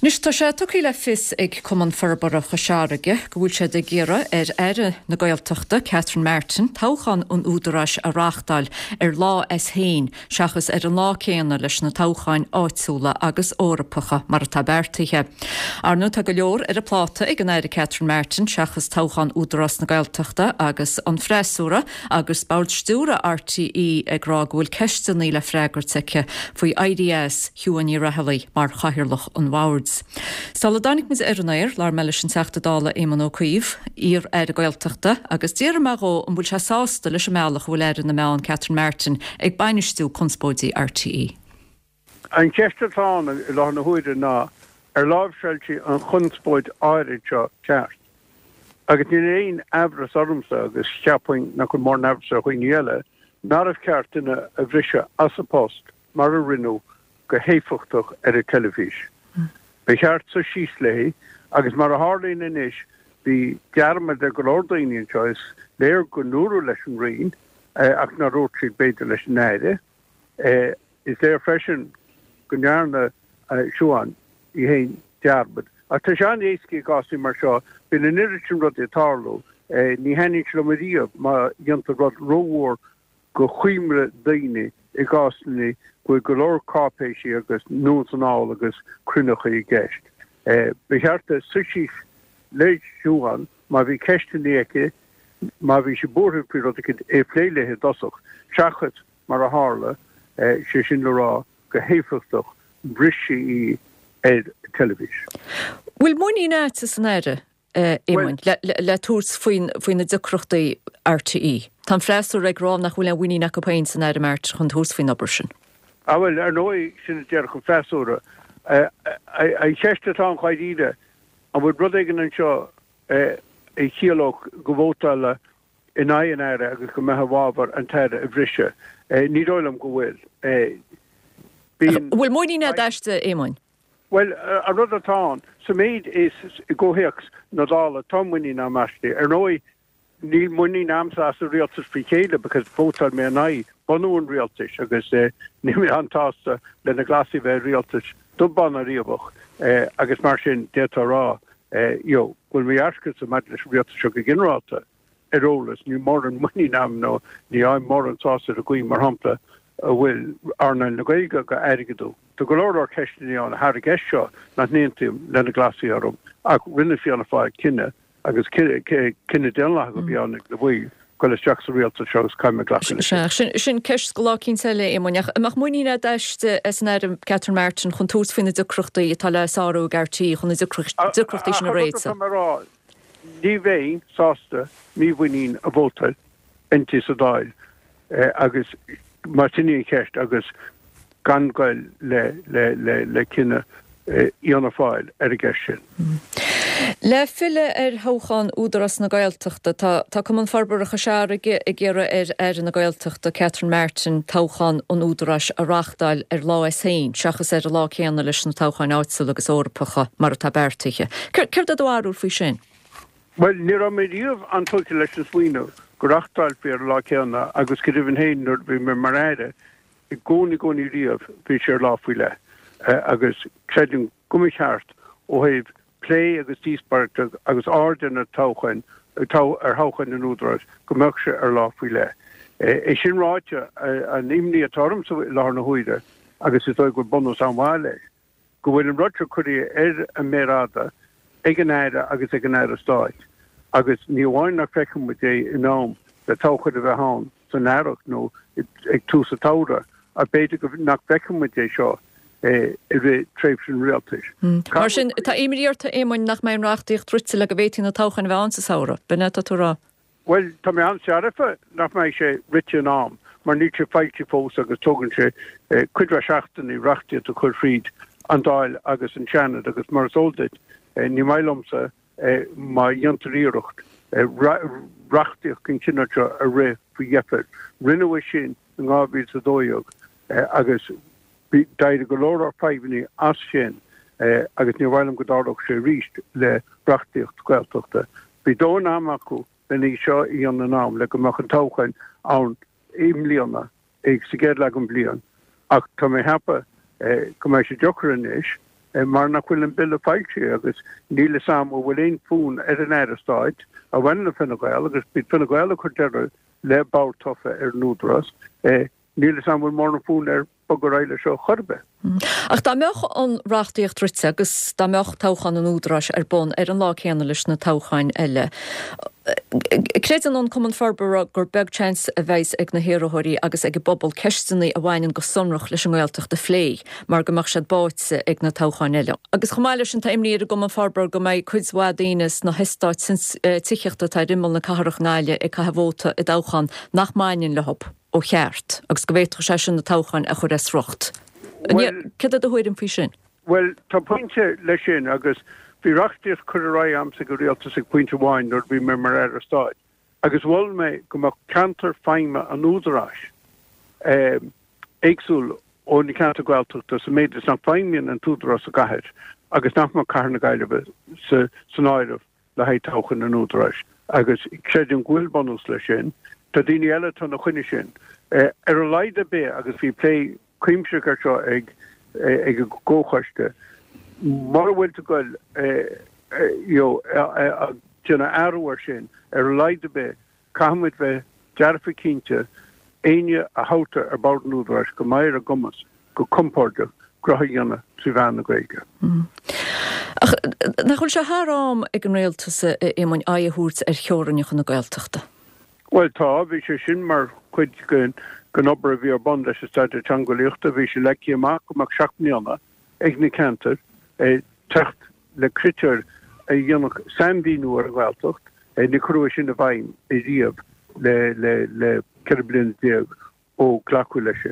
Anois tá sé tugtha le fios ag Cumann Forbartha Chois Fharraige go bhfuil siad ag iarraidh ar Aire na Gaeltachta, Catherine Martin, toghchán an Údaráis a reáchtáil ar lá as féin seachas ar an lá céanna leis na toghcháin áitiúla agus Eorpacha mar atá beartaithe. Ar ndóigh tá go leor ar a pláta ag an Aire Catherine Martin seachas toghchán Údarás na Gaeltachta agus an freasúra agus Bord Stiúrtha RTÉ ag rá go bhfuil ceisteanna le freagairt aici faoi éirí as Siuán Ní Raghallaigh mar Chathaoirleach an Bhoird. Sula dtáinig muid ar an aer, labhair mé leis an Teachta Dála Éamon Ó Cuív, iar-Aire Gaeltachta, agus d'fhiafraigh mé dhó an bhfuil sé sásta leis an mbealach a bhfuil Aire na Meán Catherine Martin ag bainistiú conspóidí RTÉ. An cheist atá ann i láthair na huaire ná ar láimhseáil sí an chonspóid áirid seo ceart? Agus níl aon aimhreas ormsa, agus cheapfainn nach bhfuil mórán aimhreas ar dhaoine eile, nárbh cheart duine a bhriseadh as a post mar a rinneadh go héifeachtach ar an teilifís. Ba cheart suí síos léi agus mar a tharlaíonn anois bhí dearmad ar go leor daoine anseo, is léir go ndúradh leis an Roinn ach nár dhúirt siad b'fhéidir leis an Aire. Is léir freisin go ndearna Siuán í féin dearmad. Ach tá sé an-éasca i gcásanna mar seo, bíonn an oiread sin rudaí ag tarlú, ní thaitníonn sé liom ariamh má dhéantar rud rómhór go choimre daoine i gcásanna go bhfuil go leor cáipéisí agus anonn is anall agus cruinneachaí i gceist. Ba cheart di suí síos le Siuán má bhí ceisteanna aici, má bhí sí buartha faoi rud éicint, é a phlé léi i dtosach, seachas mar a tharla, sé sin le rá go héifeachtach bhris sí í ar teilifís. Bhfuil muinín agat san Aire Éamoinn, le tabhairt faoi na deacrachtaí RTÉ. Tá an freasúra ag rá nach bhfuil aon mhuinín acu féin san Aire Martin chun tabhairt faoin obair sin. Ah bhuel, ar ndóigh, sin a déarfadh an freasúra. An cheist atá ann dháiríre, an bhfuil rud éigin anseo a chiallódh go vótálfá in aghaidh an Aire agus go mbeifeá i bhfabhar an tAire a bhriseadh? Ní dóigh liom go bhfuil. Bíonn. Bhfuil muinín agat aisti, Éamoinn? Bhuel, an rud atá ann, sa méid is i gcomhthéacs na Dála, tá muinín agam aisti. Ar ndóigh, níl muinín agamsa as an rialtas faoi chéile because vótáil mé in aghaidh bunú an rialtais agus níl mé an-tsásta le na Glasaigh a bheith i rialtas dubh bán ná riabhach agus mar sin d'fhéadfá a rá you know go bhfuil mo dhearcadhsa maidir leis an rialtas seo go ginearálta ar eolas. Níl mórán muinín agam nó ní fhaighim mórán sásamh ar an gcaoi, mar shampla, a bhfuil earnáil na Gaeilge á airgeadú. Tá go leor leor ceisteanna ann thar an gceist seo nach n-aontaím le na Glasaigh orthu ach rinne Fianna Fáil cinneadh agus cinneadh daonlathach a bhí ann ag na baill dul isteach sa rialtas seo agus caithfidh mé glacadh leis sin. Sea, sin ceist do lá eicínt eile, Éamoinn. Ach an mbeadh muinín agat aisti, as an Aire Catherine Martin chun tabhairt faoi na deacrachtaí atá le sárú ag RTÉ chun na deacrachtaí sin a réiteach? Ach an rud atá mé a rá, Ní bheinn sásta mímhuinín a vótáil inti sa Dáil agus más sin í an cheist agus gan goil le cinneadh Fhianna Fáil ar an gceist sin. Le filleadh ar thoghchán Údarás na Gaeltachta, tá Cumann Forbartha Chois Fharraige ag iarraidh ar Aire na Gaeltachta Catherine Martin toghchán an Údaráis a reáchtáil ar lá as féin seachas ar an lá céanna leis na toghcháin áitiúla agus Eorpacha mar atá beartaithe. Céard é do bharúil faoi sin? Bhuel, ní raibh mé riamh an-tógtha leis an smaoineamh go reáchtálfaí ar an lá céanna agus go deimhin féin nuair a bhí mé mar Aire, i gcónaí, gcónaí riamh, bhí sé ar lá faoi leith agus creidim go mba cheart ó thaobh plé agus díospóireachta agus aird ar na toghcháin, ar thoghcháin an Údaráis, go mbeadh sé ar lá faoi leith. É sin ráite, an imní atá ormsa i láthair na huaire, agus is dóigh go bhfuil bunús an-mhaith leis, go bhfuil an rud seo curtha ar an méar fhada ag an Aire agus ag an Aire Stáit agus ní amháin nach bhfeicfidh muid é in am le toghchán a bheith ann san earrach nó ag tús an tsamhraidh ach b'fhéidir go nach bhfeicfidh muid é seo i rith tréimhse an rialtais. Mar sin, tá imní ort, a Éamoinn, nach mbeidh an reachtaíocht rite le go bhféadfaí na toghcháin a bheith ann sa samhradh, b'in é atá tú a rá? Bhuel, tá mé an-searfa nach mbeidh sé rite in am, mar níl sé foilsithe fós agus tógann sé cuid mhaith seachtainí reachtaíocht a chur thríd an Dáil agus an Seanad agus mar is eol duit, ní maith liomsa má dhéantar iarracht reachtaíocht den chineál seo a rith faoi dheifir. Rinneadh é sin in 2012 agus d'éirigh go leor leor fadhbanna as sin agus níor mhaith liom go dtarlódh sé arís le reachtaíocht Gaeltachta. Bhí dóthain ama acu len í seo a dhéanamh in am le go mbeadh an toghchán ann i mbliana, sa gcéad leath den bhliain, ach tá mé ag ceapadh go mbeidh sé deacair anois. mar nach bhfuil an Bille foilsithe agus níl fhios a'm an bhfuil aon fhonn ar an Aire Stáit a bhaineann le Fine Gael agus b'iad Fine Gael a chuir deireadh le bord tofa ar an Údarás. Níl fhios a'm an bhfuil mórán fonn air bogadh ar aghaidh leis seo chor ar bith. Ach dá mbeadh an reachtaíocht rite agus dá mbeadh toghchán an Údaráis ar bun ar an lá céanna leis na toghcháin eile, creideann an Cumann Forbartha gur beag seans a bheas ag na hiarrthóirí agus ag an bpobal ceisteanna a bhaineann go sonrach leis an nGaeltacht a phlé mar go mbeadh siad báite ag na toghcháin eile. Agus chomh maith leis sin tá imní ar an gCumann Forbartha go mbeidh cuid mhaith daoine sna heastáit tithíochta atá ar imeall na cathrach i nGaillimh ag caitheamh vóta i dtoghchán nach mbaineann leo ó cheart agus go bhféadfadh sé sin na toghcháin a chur as riocht. Céard é do thuairim faoi sin? Bhuel, tá pointe leis sin agus bhí reachtaíocht curtha ar aghaidh a'msa ag an Rialtas ag pointe amháin nuair a bhí mé mar Aire Stáit agus mhol mé go mbeadh ceantar feidhme an Údaráis éagsúil ó na ceantair Ghaeltachta sa méid is nach bhfeidhmíonn an tÚdarás sa gcathair agus nach mbeadh Cathair na Gaillimhe san áireamh le haghaidh toghchán an Údaráis agus creidim go bhfuil bunús leis sin. Tá daoine eile atá ina choinne sin. Ar a laghad ar bith, agus bhí plé cuimsitheach air seo ag ag an gcomhchoiste, mura bhfuil tú ag goil you know ag déanamh athrú air sin, ar a laghad ar bith, Caithfidh muid bheith dearfa cinnte, éinne a thoghtar ar bord an Údaráis go mbeidh ar a gcumas go compordach gnoithe a dhéanamh trí mheán na Gaeilge. Ach nach bhfuil sé thar am ag an Rialtas, a Éamoinn, aghaidh a thabhairt ar theorainneacha na Gaeltachta? Bhuel tá, bhí sé sin mar chuid den obair a bhí ar bun leis an Staidéar Teangeolaíochta. Bhí sé leagtha amach go mbeadh 7 mbliana ag na ceantair teacht le critéir a dhéanfadh sainmhíniú ar an nGaeltacht. Níor cuireadh é sin i bhfeidhm ariamh le 14 bliana ó glacadh leis sin.